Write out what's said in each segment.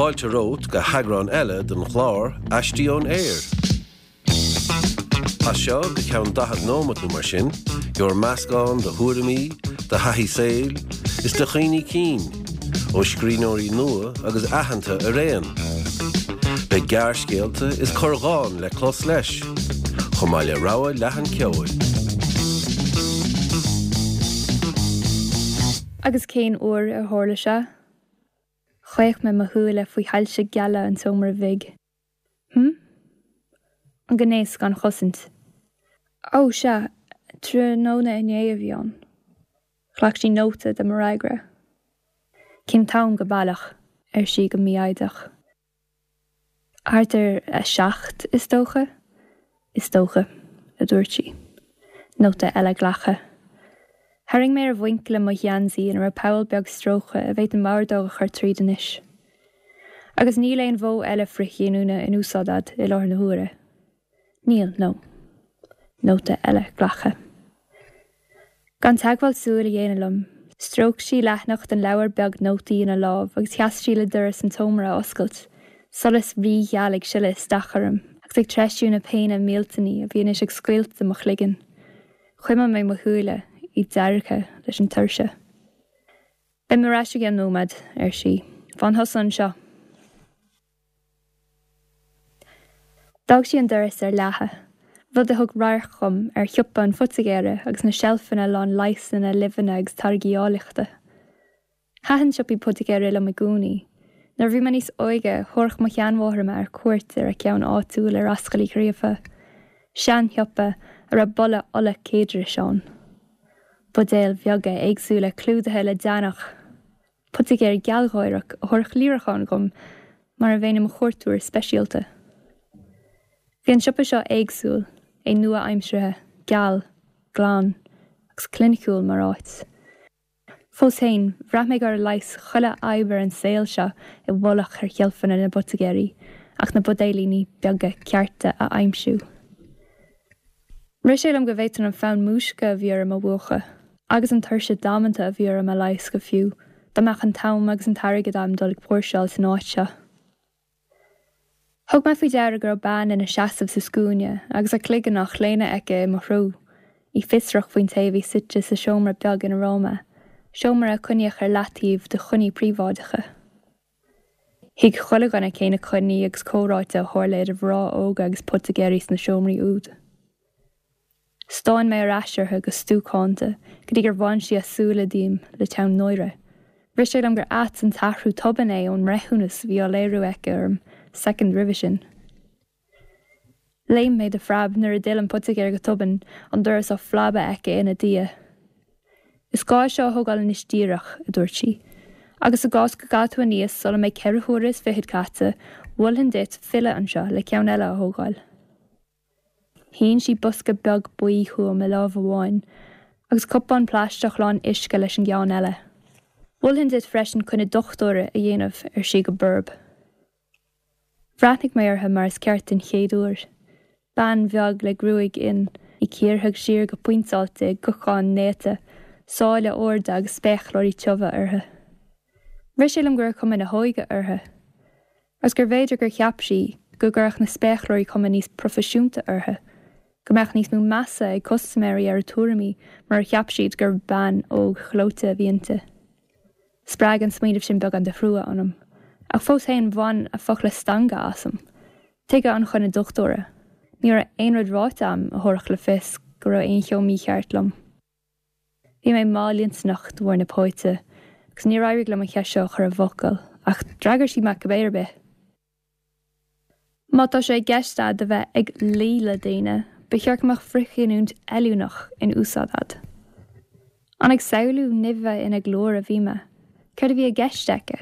Fáilte romhat go heagrán eile den chlár Aistí ón Aer. As seo go ceann 40 nóimeat nó mar sin, gheobhair meascán de thuairimí, de thaithí saoil, is de chuimhní cinn, ó scríbhneoirí nua agus aitheanta araon. Beidh gearrscéalta is corrdhán le clos leis, chomh maith le rogha leathan ceoil. Agus cén uair a tharla sé? Chaoch mé mo shúile faoi shoilse geala an tseomra bhig. Hm? An gnéas gan chosaint. Ó, sea, tráthnóna inné a bhí ann. Ghlac sí nóta de mo fhreagra. Cén t-am go baileach? ar sí go mífhoighdeach. Thart ar a 7, is dócha. Is dócha, a dúirt sí. Nóta eile glactha. Tharraing mé ar mhuinchille mo gheansaí ina raibh poll beag stróicthe a bhféadfainn m'ordóg a chur tríd anois. Agus níl aon mhodh eile frithghiniúna in úsáid a'd i láthair na huaire. Níl, no. Nóta eile glactha. Gan teagmháil súl a dhéanamh liom, stróic sí leathanach den leabhar beag nótaí ina lámh agus sheas sí le doras an tseomra a oscailt, solas rígheal ag sileadh isteach orm agus ag treisiú na péine millteanaí a bhí anois ag scoilteadh mo chloigeann. Chuimil mé mo shúile, iad deargtha leis an tuirse. Beidh mé ar ais i gceann nóiméad, ar sí. Fan thusa anseo. D'fhág sí an doras ar leathadh, rud a thug radharc dhom ar shiopa an phoitigéara agus na seilfeanna lán leigheasanna, luibheanna agus táirgí áilleachta. Thaitin siopaí poitigéara liom i gcónaí. Nuair a bhí mé níos óige, thabharfadh mo sheanmháthair mé ar cuairt ar a ceann áitiúil ar Ascaill Uí Ghríofa, seanshiopa a raibh boladh ola céadrais ann. Buidéil bheaga éagsúla clúdaithe le deannach. Poitigéir gealgháireach a thabharfadh líreachán dhom mar a bheinn i mo chuairteoir speisialta. Bhí an siopa seo éagsúil, é nua-aimseartha, geal, glan agus cliniciúil mar áit. Fós féin, bhraith mé go raibh leigheas chuile fhadhb ar an saol seo i bhfolach ar sheilfeanna na bpoitigéirí ach na buidéilíní beaga cearta a aimsiú. Rith sé liom go bhféadfainn an fonn múisce a bhí orm a mhúchadh, agus an tuirse damanta a bhí orm a leigheas go fiú, dá mbeadh an t-am agus an t-airgead a'm dul ag póirseáil san áit seo. Thug mé faoi deara go raibh bean ina seasamh sa scuaine agus a cloigeann á chlaonadh aici i mo threo, í fiosrach faoin té a bhí suite sa seomra beag ina raibh mé, seomra a coinníodh ar leataobh do choinní príobháideacha. Thuig chuile dhuine cé na coinní agus comhráite a tharla idir mhná óga agus poitigéirí sna seomraí úd. Stán mé ar ais uirthi go stuacánta go dtí gur bhain sí a súile díom le teann náire. Rith sé liom gur ait an t-athrú tobann é ón mbreithiúnas a bhí á léiriú aici orm soicind roimhe sin. Léim mé de phreab nuair a d'fhill an poitigéir go tobann, an doras á phlabadh aici ina diaidh. Is gá é seo a thógáil anois díreach, a dúirt sí. Agus i gcás go gcaithfidh tú aníos sula mbeidh 24 huaire caite, mholfainn duit filleadh anseo le ceann eile a thógáil. Shín sí bosca beag buí chugam i lámh amháin, agus cupán plaisteach lán uisce leis an gceann eile. Mholfainn duit freisin coinne dochtúra a dhéanamh, ar sí go borb. Bhreathnaigh mé uirthi mar is ceart den chéad uair. Bean bheag le gruaig fhionn, í cíortha siar go pointeáilte i gcocán néata, sáile arda agus spéacláirí tiubha uirthi. Rith sé liom go raibh cuma na hóige uirthi. Agus gurbh fhéidir gur cheap sí go gcuirfeadh na spéacláirí cuma níos proifisiúnta uirthi, go mbeadh níos mó measa ag custaiméirí ar a tuairimí murar cheap siad gur bean óg ghleoite a bhí inti. Spreag an smaoineamh sin beagán de thrua ionam. Ach fós féin, bhain a focla stangadh asam. Tuige an choinne dochtúra? Ní raibh aon rud ráite a'm a thabharfadh le fios go raibh aon cheo mícheart liom. Bhí mé mallintinneach de bharr na póite, agus níor éirigh liom an cheist seo a chur i bhfocail, ach d'fhreagair sí mé cibé ar bith. Má tá sé i gceist a'd a bheith ag luí le daoine, ba cheart go mbeadh frithghiniúint fheiliúnach in úsáid a'd. An ag samhlú nimhe ina glór a bhí mé? Céard a bhí i gceist aici?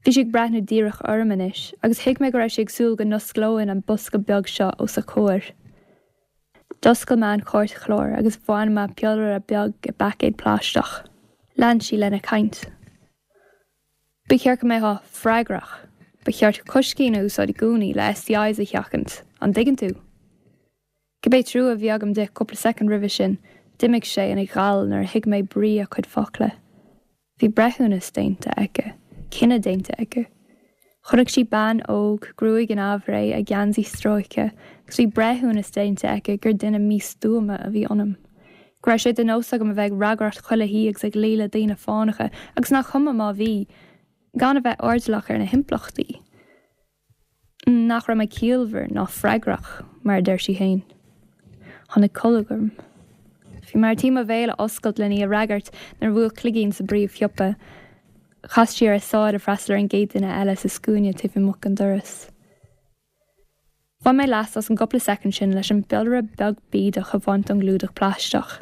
Bhí sí ag breathnú díreach orm anois agus thuig mé go raibh sí ag súil go n-osclóinn an bosca beag seo os a comhair. D'oscail mé an cairtchlár agus bhain mé piollaire beag i bpaicéad plaisteach. Lean sí lena caint. Ba cheart go mbeifeá freagrach. Ba cheart coiscín a úsáid i gcónaí le STIs a sheachaint, an dtuigeann tú? Cibé trua a bhí agam di cúpla soicind roimhe sin, d'imigh sé ina ghal nuair a thuig mé brí a cuid focla. Bhí breithiúnas déanta aici, cinneadh déanta aici. Chonaic sí bean óg, gruaig in aimhréidh, a geansaí stróicthe, agus bhí breithiúnas déanta aici gur duine místuama a bhí ionam. Go raibh sé de nós agam a bheith ag ragaireacht chuile thí agus ag luí le daoine fánacha, agus nach cuma má bhí, gan a bheith airdeallach ar na himpleachtaí. Nach raibh mé ciallmhar ná freagrach, mar a deir sí féin. Tháinig colg orm. Bhí mé ar tí mo bhéal a oscailt len í a fhreagairt nuair a bhuail cloigín sa bpríomhshiopa. Chas sí ar a sáil le freastal ar an gcéad duine eile sa scuaine taobh amuigh den doras. Bhain mé leas as an gcúpla soicind sin leis an bpiollaire beag bídeach a bhaint ón gclúdach plaisteach.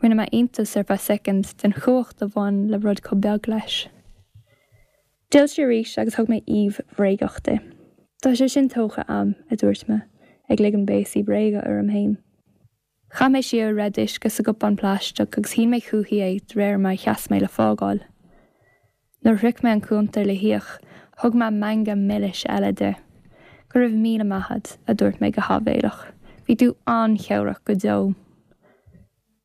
Rinne mé iontas ar feadh soicind den chumhacht a bhain le rud chomh beag leis. D'fhill sí arís agus thug mé aoibh bhréagach di. Tá sé sin tógtha a'm, a dúirt mé, ag ligean béasaí bréige orm féin. Chaith mé siar a raibh d'uisce sa gcupán plaisteach agus shín mé chúichi é de réir mar a sheas mé le fágáil. Nuair a shroich mé an cuntar le híoc, thug mé meangadh milis eile di. Go raibh míle maith a'd, a dúirt mé go háibhéileach. Bhí tú an-chabhrach go deo.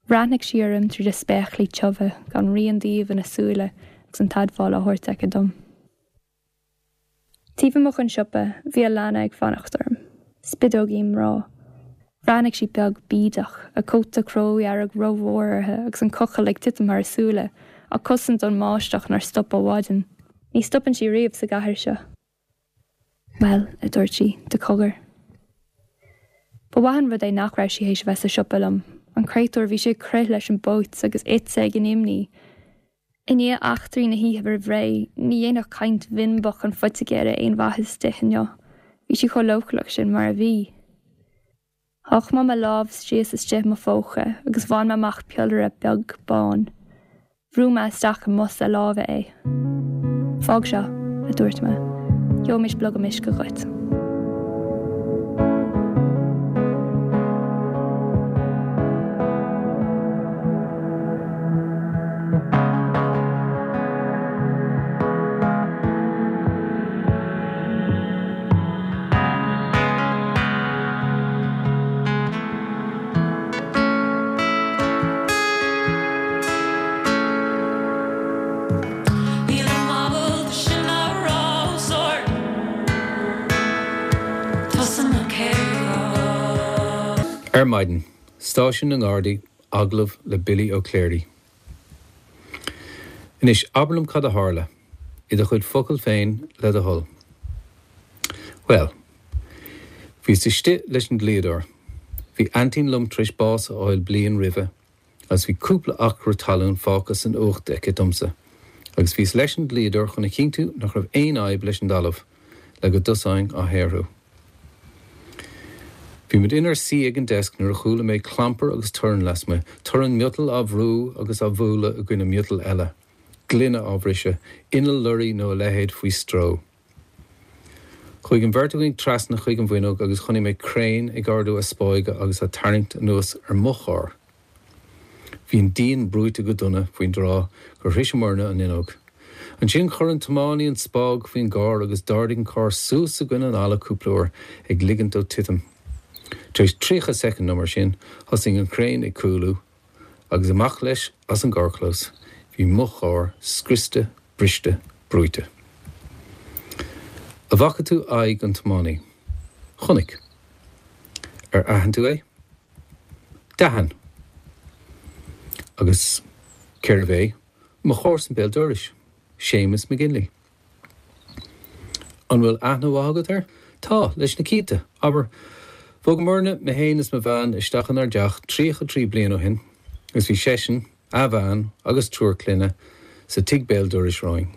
Bhreathnaigh sí orm tríd a spéaclaí tiubha, gan rian d'aoibh ina súile agus an t-admháil á thabhairt aici dom. Taobh amuigh den siopa, bhí Alana ag fanacht orm. Spideoigín mná. Bhreathnaigh sí beag bídeach, a cóta cródhearg rómhór uirthi agus an cochall ag titim thar a súile, á cosaint ón mbáisteach nár stop ó mhaidin. Ní stopann sí riamh sa gcathair seo. Bhuel, a dúirt sí, de cogar. Ba mhaith an rud é nach raibh sí théis a bheith sa siopa liom. An créatúr, bhí sí ag crith leis an bpóit agus ite ag an imní. I ndiaidh eachtraí na hoíche roimh ré, ní dhéanfadh caint bhinbeach an phoitigéara aon mhaitheas di inniu. Bhí sí chomh leochaileach sin mar a bhí. Sháigh mé mo lámh síos istigh i mo phóca agus bhain mé amach piollaire beag bán. Bhrúigh mé isteach i mbos a láimhe é. Fág seo, a dúirt mé. Gheobhaimis blogam uisce dhuit. Nílim ábalta sin a rá os ard. Tusa mo chéad Ar maidin, Stáisiún na nGardaí, agallamh le Billy Ó Cléirigh. Anois, abair liom cad a tharla, i do chuid focal féin, le do thoil. Bhuel, bhíos istigh leis an dlíodóir. Bhí aintín liom tar éis bás a fháil bliain roimhe agus bhí cúpla acra talún fágtha san uacht aici domsa agus bhíos leis an dlíodóir chun a chinntiú nach raibh aon fhadhb leis an dtalamh le go dtosóinn á shaothrú. Bhí muid inár suí ag an deasc nuair a chuala mé clampar agus torann lasmuigh, torann miotail á bhrú agus á bhualadh i gcoinne miotail eile, gloine á bhriseadh, inneall lorraí nó a leithéid faoi stró. Chuaigh an bheirt againn trasna chuig an bhfuinneog agus chonaic mé craein ag ardú a spáige agus á tarraingt anuas ar mo charr. Bhí an díon brúite go dona faoin dtráth gur shroiseamarna an fhuinneog. Ansin chuir an tiománaí an spág faoin gcarr agus d'ardaigh an carr suas i gcoinne an fhalla cúpla uair, ag ligint dó titim. Tar éis 30 soicind nó mar sin, thosaigh an craein ag cúlú, agus amach leis as an gcarrchlós. Bhí mo charr scriosta, briste, brúite. An bhfaca tú aghaidh an tiománaí? Chonaic. Ar aithin tú é? D'aithin. Agus cérbh é? Mo chomharsan béal dorais, Séamus McGinley. An bhfuil aithne mhaith agat air? Tá, leis na cianta. Abair, bhogamarna, mé féin is mo bhean, isteach inár dteach 33 bliain ó shin agus bhí seisean, a bhean agus triúr clainne sa tigh béal dorais romhainn.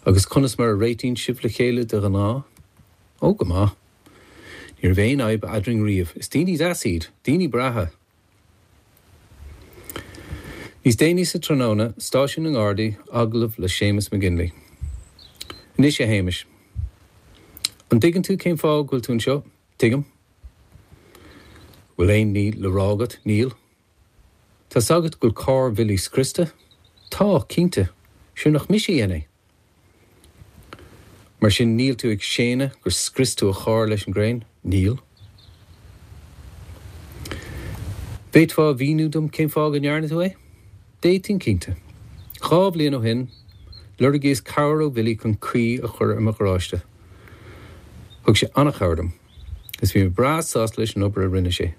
Agus conas mar a réitíonn sibh le chéile de ghnáth? Ó, go maith. Ní raibh aon fhadhb eadrainn riamh. Is daoine deas iad. Daoine breátha. Níos déanaí sa tráthnóna, Stáisiún na nGardaí, agallamh le Séamus McGinley. Anois, a Shéamais. An dtuigeann tú cén fáth go bhfuil tú anseo? Tuigim. Bhfuil aon ní le rá agat? Níl. Tá's agat go bhfuil carr Bhilly scriosta? Tá, cinnte. Sure nach mise a dhein é? Mar sin níl tú ag séanadh gur scrios tú a charr leis an gcraein? Níl. Bhféadfá a mhíniú dom cén fáth go ndearna tú é? D'fhéadfainn cinnte. Dhá bhliain ó shin, Lorgaíos cabhair ó Bhilly chun caoi a chur ar mo gharáiste. Thug sé an-chabhair dom, agus bhí mé breá sásta leis an obair a rinne sé.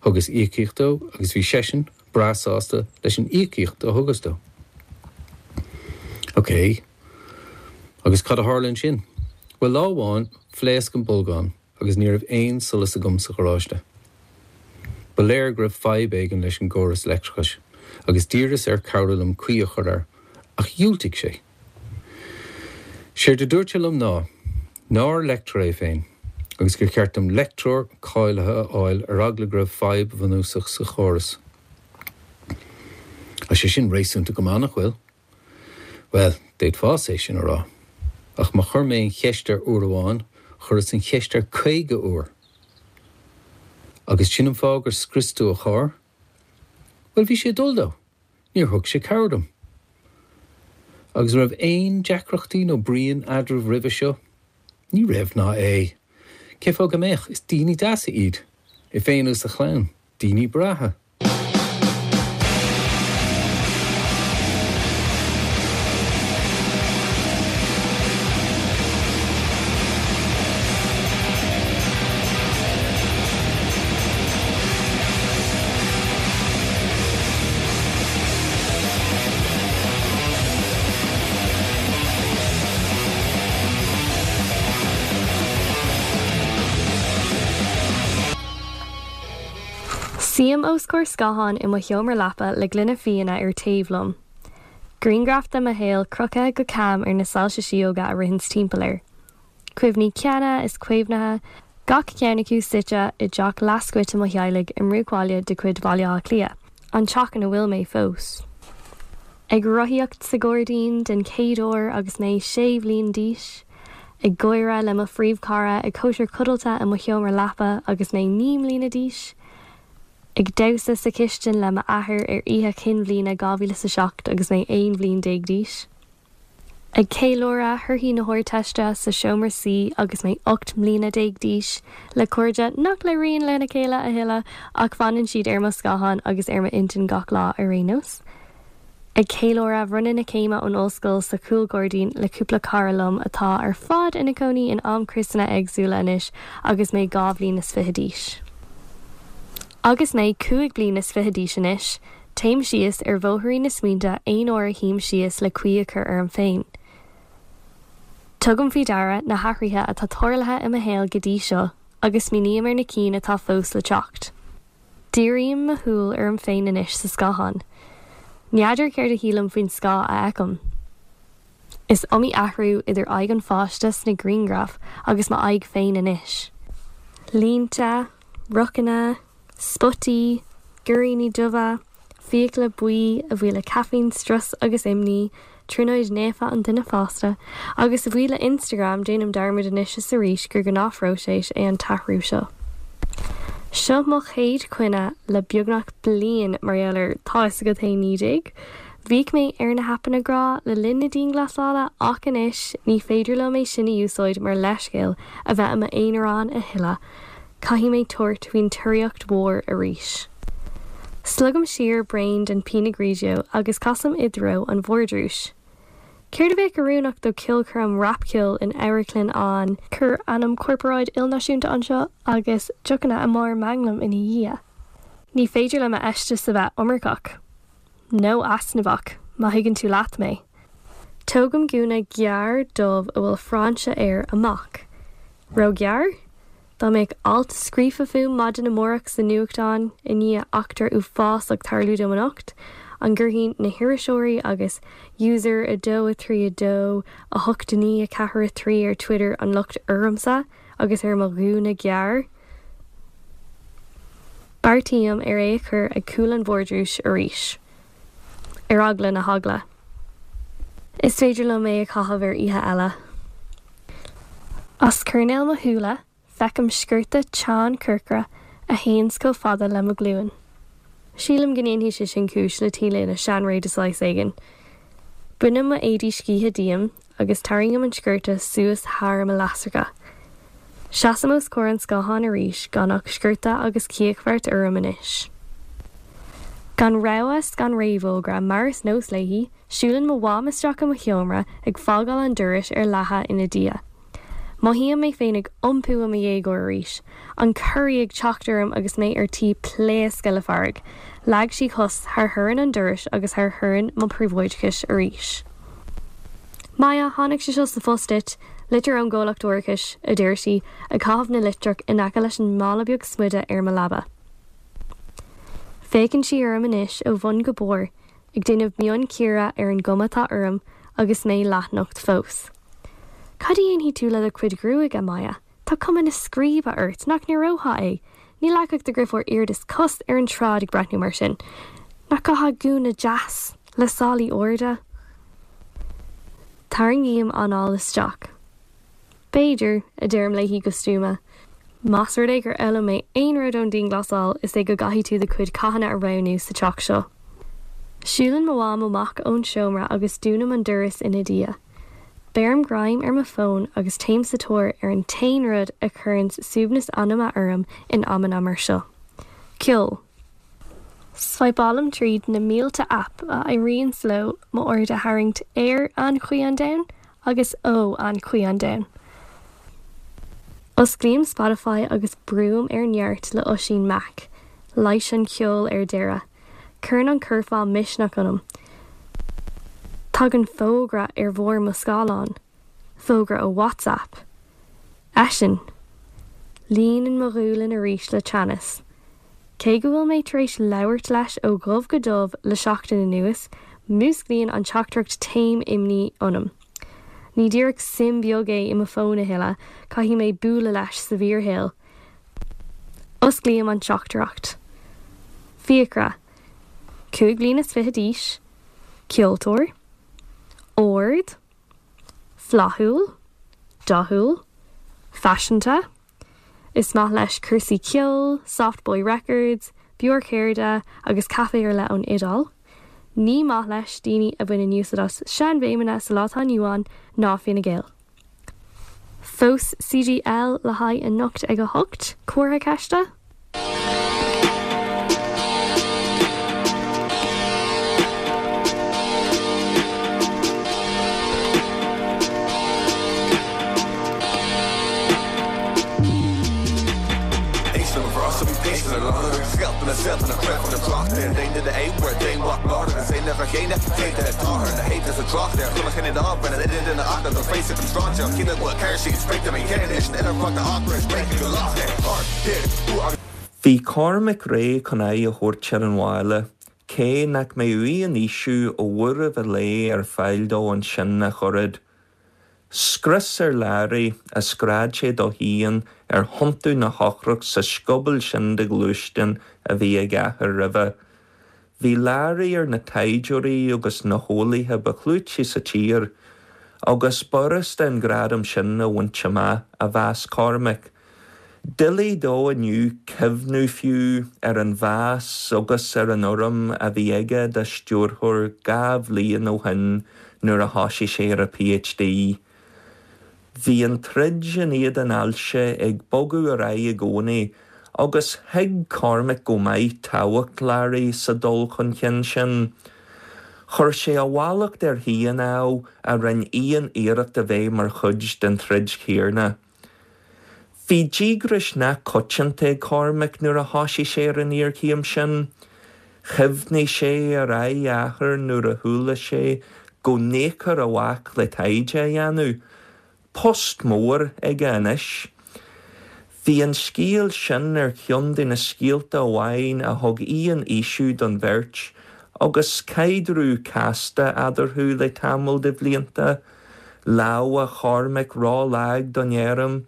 Thugas íocaíocht dó agus bhí seisean breá sásta leis an íocaíocht a thugas dó. Ok. Agus cad a tharla ansin? Bhuel, lá amháin, phléasc an bolgán agus ní raibh aon solas agam sa gharáiste. Ba léir go raibh fadhb éigin leis an gcóras leictreachais agus d'iarras air cabhrú liom caoi a chur air, ach dhiúltaigh sé. Séard a dúirt sé liom ná nár leictreoir é féin agus gur cheart dom leictreoir cáilithe a fháil ar eagla go raibh fadhb bhunúsach sa chóras. Tá sé sin réasúnta go maith, nach bhfuil? Bhuel, d'fhéadfása é sin a rá. Ach má chuir mé an cheist air uair amháin, chuireas an cheist air 50 uair. Agus sin an fáth gur scrios tú a charr? Bhuel, bhí sé ag dul dó. Níor thug sé cabhair dom. Agus an raibh aon deacrachtaí nó bruíon eadraibh roimhe seo? Ní raibh ná é. Cé fáth go mbeadh? Is daoine deasa iad. É féin agus a chlann. Daoine breátha. Suím os comhair scátháin i mo sheomra leapa le gloine fíona ar taobh liom. Grianghraf de mo shaol crochtha go cam ar na soilse síóga a ritheanns timpeall air. Cuimhní ceana is caomhnaithe, gach ceann acu suite i dteach leathscoite mo theaghlaigh i mbruachbhaile de chuid Bhaile Átha Cliath, an teach ina bhfuil mé fós. Ag rothaíocht sa ghairdín den chéad uair agus mé sé bhliain d'aois, ag gáire le mo phríomhchara ag cóisir codlata i mo sheomra leapa agus mé 9 mbliana d'aois, ag damhsa sa chistin le m'athair ar oíche chinn bhliana 2007 agus mé 11 bhliain d'aois. Ag ceiliúradh thorthaí na hArdteiste sa seomra suí agus mé 18 mbliana d'aois, le cairde nach labhraíonn lena chéile a thuilleadh ach fanann siad ar mo scáthán agus ar m'intinn gach lá ar aon nós. Ag ceiliúradh bhronnadh na céime ón ollscoil sa chúlghairdín le cúpla cara liom atá ar fad ina cónaí in amchriosanna éagsúla anois agus mé 2 bhliain is fiche d'aois. Agus mé 5 bliana is fiche d'aois anois, Téim síos ar bhóithrín na smaointe aon uair a shuím síos le caoi a chur orm féin. Tugaim faoi deara na hathruithe atá tarlaithe i mo shaol go dtí seo agus smaoiním ar na cinn atá fós le teacht. Dírím mo shúil orm féin anois sa scáthán. N'fheadar céard a shílim faoin scáth a fheicim. Is iomaí athrú idir aghaidh an pháiste sna grianghraif agus m'aghaidh féin anois. Línte, rocanna, Spotaí, goiríní dubha, fiacla buí, a bhuí le caiféin, strus agus imní, trionóid naofa an duine fásta, agus a bhuí le Instagram déanaim dearmad anois is arís gur gnáthphróiseas é an t-athrú seo. Seo mo chéad choinne le beagnach bliain mar gheall ar tá 'fhios agat féin 19. Bhíodh mé ar na haipeanna grá le linn na dianghlasála ach anois ní féidir liom é sin a úsáid mar leithscéal a bheith i m'aonarán a thuilleadh. Caithfidh mé tabhairt faoin tóraíocht mhór arís. Slogaim siar braon den Pinot Grigio agus casaim i dtreo an vardrúis. Céard a bheadh oiriúnach do cheolchoirm rapcheoil in amharclann an. Cuir ainm corparáid ilnáisiúnta anseo agus deochanna i mbarr manglaim ina dhiaidh. Ní féidir le m'fheisteas a bheith iomarcach. Nó easnamhach, má thuigeann tú leat mé. Tógaim gúna gearr dubh a bhfuil frainse air amach. Róghearr? Dá mbeadh alt scríofa fúm maidin amárach sa nuachtán i ndiaidh eachtra uafásach tarlú dom anocht, an gcuirfidh na hiriseoirí agus user 2 3 2 8 9 4 3 ar Twitter an locht ormsa agus ar mo ghúna gearr? Beartaím ar é a chur ag cúl an vardrúis arís. Ar eagla na heagla. Is féidir liom é a chaitheamh ar oíche eile. As coirnéal mo shúile, feicim sciorta teann corcra a théanns chomh fada le mo ghlúin. Sílim go ndéanfaidh sé sin cúis le T-léine seanré de saghas éigin. Bainim mo éadaí scíthe díom agus tarraingim an sciorta suas thar mo leasracha. Seasaim os comhair an scátháin arís gan ach sciorta agus cíochbheart orm anois. Gan rabhadh 's gan réamhfhógra, mar is nós léi, siúlann mo mham isteach i mo sheomra, ag fágáil an dorais ar leathadh ina diaidh. Mothaím mé féin ag iompú i mo dhéagóir arís, an corraí ag teacht orm agus mé ar tí pléascadh le fearg. Leag sí cos thar thorann an dorais agus thar thorann mo phríobháideachais arís. Maya, tháinig sé seo sa phost duit, litir ón gcomhlacht árachais, a deir sí, ag caitheamh na litreach in aice leis an mála beag smuide ar mo leaba. Féachann sí orm anois ó bhun go barr, ag déanamh mionchíoradh ar an gcuma atá orm agus mé leathnocht fós. Cad a dhéanfaidh tú le do chuid gruaige, Maya? Tá cuma na scríbe ort, nach n-aireofá é? Ní leagfadh do dheirfiúr iarda is cos ar an tsráid ag breathnú mar sin. Nach gcaithfeá gúna deas, le sálaí arda? Tarraingím anáil isteach. B'fhéidir, a deirim léi go stuama. Más rud é gur fhoghlaim mé aon rud ón dianghlasáil, is é go gcaithfidh tú do chuid cathanna a roghnú sa teach seo. Siúlann mo mham amach ón seomra agus dúnaim an doras ina diaidh. Beirim greim ar mo fón agus téim sa tóir ar an t-aon rud a chuireanns suaimhneas anama orm in amanna mar seo. Ceol. Svaidhpeálaim tríd na mílte aip a éiríonns leo m'aird a tharraingt ar anchaoi an domhain agus ó anchaoi an domhain. Osclaím Spotify agus brúim ar neart le Oisín Mac. Leighis an cheoil ar deireadh. Cuireann an curfá misneach ionam. Tagann fógra ar bharr mo scáileáin. Fógra ó WhatsApp. Eisean. Líonann mo ghualainn arís le teannas. Cé go bhfuil mé tar éis labhairt leis ó dhubh go dubh le seachtain anuas, músclaíonn an teachtaireacht taom imní ionam. Ní díreach suim bheag é i mo fón a thuilleadh, caithfidh mé bualadh leis sa bhfíorshaol. Osclaím an teachtaireacht. Fiachra. 25 bliana d'aois. Ceoltóir. Ard. Flaithiúil. Dathúil. Faiseanta. Is maith leis cúrsaí ceoil, Soft Boy Records, beoir cheirde agus caife ar leith ón Iodáil. Ní maith leis daoine a bhaineann úsáid as seanbhéimeanna sa lá atá inniu ann ná Fine Gael. Fós CGL le haghaidh anocht ag 8? Comhartha ceiste? Bhí Cormac réidh chun aghaidh a thabhairt ar an bhaile, cé nach mbeadh aon fhaoiseamh ó bhuaireamh an lae ar fáil dó ansin ach oiread. Scrios ar Larry, a scread sé dó féin ar thiontú na heochrach sa scioból sin de ghluaisteán a bhí ag a athair roimhe. Bhí Larry ar na taighdeoirí agus na heolaithe ba chlúití sa tír, agus b'fhurasta an gradam sin a bhaint amach, a mheas Cormac. Doiligh dó inniu cuimhniú fiú ar an mheas agus ar an urraim a bhí aige dá stiúrthóir 2 bhliain ó shin nuair a thoisigh sé ar a PhD. Bhí an troid in éadan ailse ag bogadh ar aghaidh i gcónaí agus thuig Cormac go maith tábhacht Larry sa dul chun cinn sin. Chuir sé a mhallacht air féin, ámh, a rinne aon iarracht a bheith mar chuid den troid chéanna. Bhí díograis nach coitianta ag Cormac nuair a thoisigh sé ar an iarchéim sin. Chuimhnigh sé ar aghaidh a athar nuair a chuala sé go n-íocfar a mhac le taighde a dhéanamh. Post mór aige anois. Bhí an scéal sin ar cheann de na scéalta amháin a thug aon fhaoiseamh don bheirt agus caidreamh casta eadarthu le tamall de bhlianta. Lámha Chormaic ró-lag don fheirm,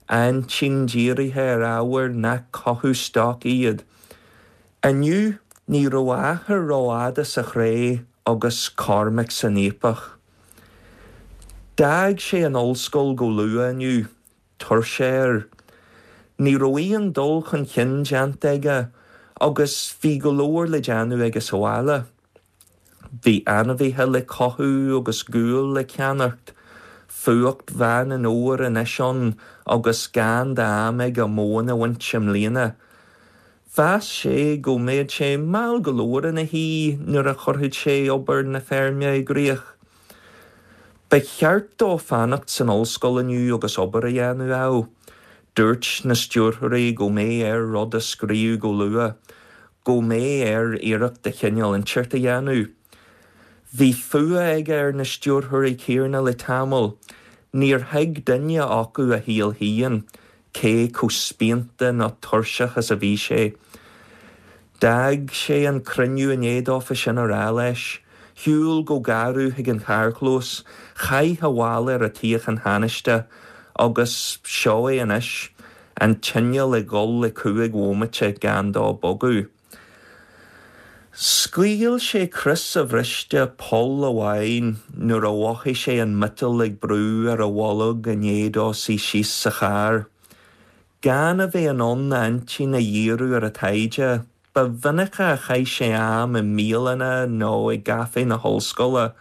a intinn dírithe ar ábhair nach cothú stoc iad. Inniu, ní raibh a athair rófhada sa chré agus Cormac san fhaopach. D'fhág sé an ollscoil go luath inniu, tuirse air. Ní raibh aon dul chun cinn déanta aige agus bhí go leor le déanamh aige sa bhaile. Bhí ainmhithe le cothú agus gual le ceannacht, fuacht Mheán an Fhómhair anois ann agus gan d'am aige móin a bhaint i mbliana. Mheas sé go mbeadh sé mall go leor ina shuí nuair a chuirfeadh sé obair na feirme i gcrích. Ba cheart dó fanacht san ollscoil inniu agus obair a dhéanamh, ámh. Dúirt na stiúrthóirí go mbeadh air rud a scríobh go luath, go mbeadh air iarracht de chineál inteacht a dhéanamh. Bhí fuath aige ar na stiúrthóirí céarna le tamall. Níor thuig duine acu a shaol féin, cé chomh spíonta nó tuirseach is a bhí sé. D'fhág sé an cruinniú i ndiaidh dófa sin a rá leis. Shiúil go garbh chuig an charrchlós, chaith a mhála ar an tsuíochán thánaiste agus seo é anois, an t-inneall ag dhul le chúig bhomaite gan dó bogadh. Scaoil sé crios a bhriste poll amháin nuair a mhothaigh sé an miotal ag brú ar a bholg i ndiaidh dó suí síos sa charr. Gan a bheith in ann a intinn a dhíriú ar an taighde, ba mhinice a chaith sé am i mbialanna nó i gcaifé na hollscoile.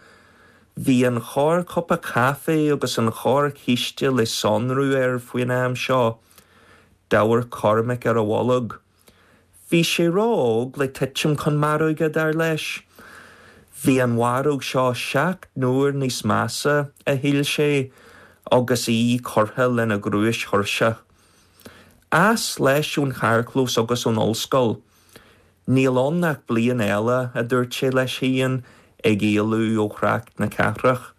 Bhí an chorrchupa caife agus an chorrchíste le sonrú air faoin am seo. D'amharc Cormac ar a bholg. Bhí sé ró-óg le titim chun maróige, dar leis. Bhí an mharóg seo 7 n-uair níos measa, a shíl sé, agus í curtha lena ghnúis thuirseach. As leis ón charrchlós agus ón ollscoil. Níl ann ach bliain eile, a dúirt sé leis féin, ag éalú ó thrácht na cathrach.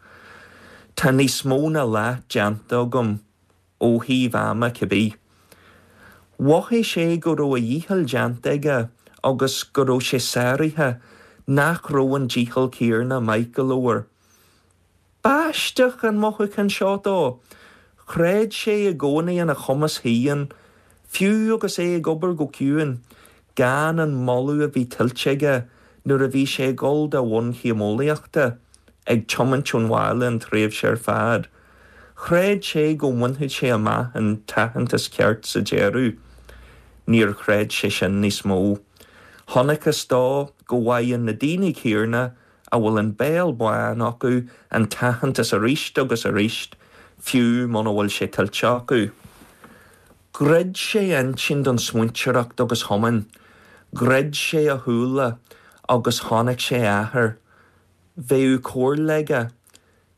Tá níos mó ná leath déanta agam. ó thaobh ama cibé. Mhothaigh sé go raibh a dhícheall déanta aige agus go raibh sé sáraithe, nach raibh an dícheall céarna maith go leor. B'aisteach an mothúchán seo dó. Chreid sé i gcónaí ina chumas féin, fiú agus é ag obair go ciúin, gan an moladh a bhí tuillte aige nuair a bhí sé ag dul dá bhunchéim eolaíochta, ag tiomáint ón bhaile an tréimhse ar fad. Chreid sé go mbainfeadh sé amach an t-aitheantas ceart sa deireadh. Níor chreid sé sin níos mó. Chonacthas dó go bhfaigheann na daoine céarna a bhfuil an béal bán acu an t-aitheantas arís agus arís, fiú muna bhfuil sé tuillte acu. Dhruid sé a intinn don smaointeoireacht agus thiomáin. Dhruid sé a shúile agus chonaic sé a athair. Bheadh comhairle aige.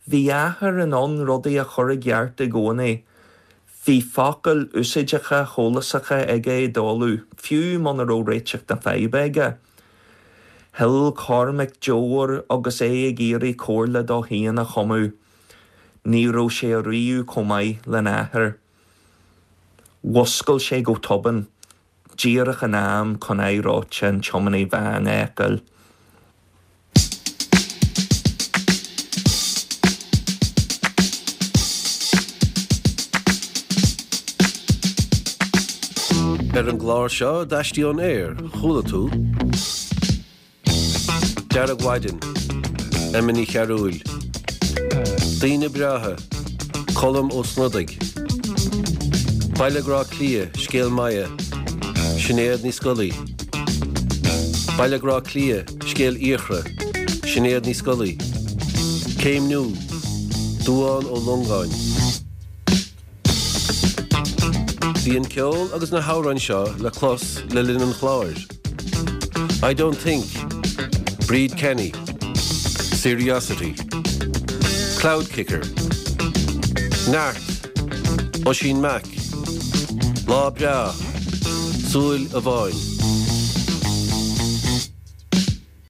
Bhí a athair in ann rudaí a chur i gceart i gcónaí. Bhí focail úsáideacha shólásacha aige i dtólamh, fiú muna raibh réiteach na faidhbe aige. Shil Cormac deoir agus é ag iarraidh comhairle dó féin a chumadh. Ní raibh sé ariamh chomh maith lena athair. Mhuscail sé go tobann, díreach in am chun aghaidh reoite an tiománaí bháin a fheiceáil. Ar an gclár seo d'Aistí ón Aer, chuala tú. Deargmhaidin, Emma Ní Chearúil. Daoine Breátha, Colm Ó Snodaigh. Baile Grá Cliath, Scéal Maya, Sinéad Ní Scolaí. Baile Grá Cliath, Scéal Fhiachra, Sinéad Ní Scolaí. Céimniú, Dubhán Ó Longáin. Bhí an ceol agus na hamhráin seo le clos le linn an chláir. I Don't Think, Bríd Kenny, Seriosity, Cloud Kicker, Neart, Oisín Mac, Lá Breá, Súil Amháin.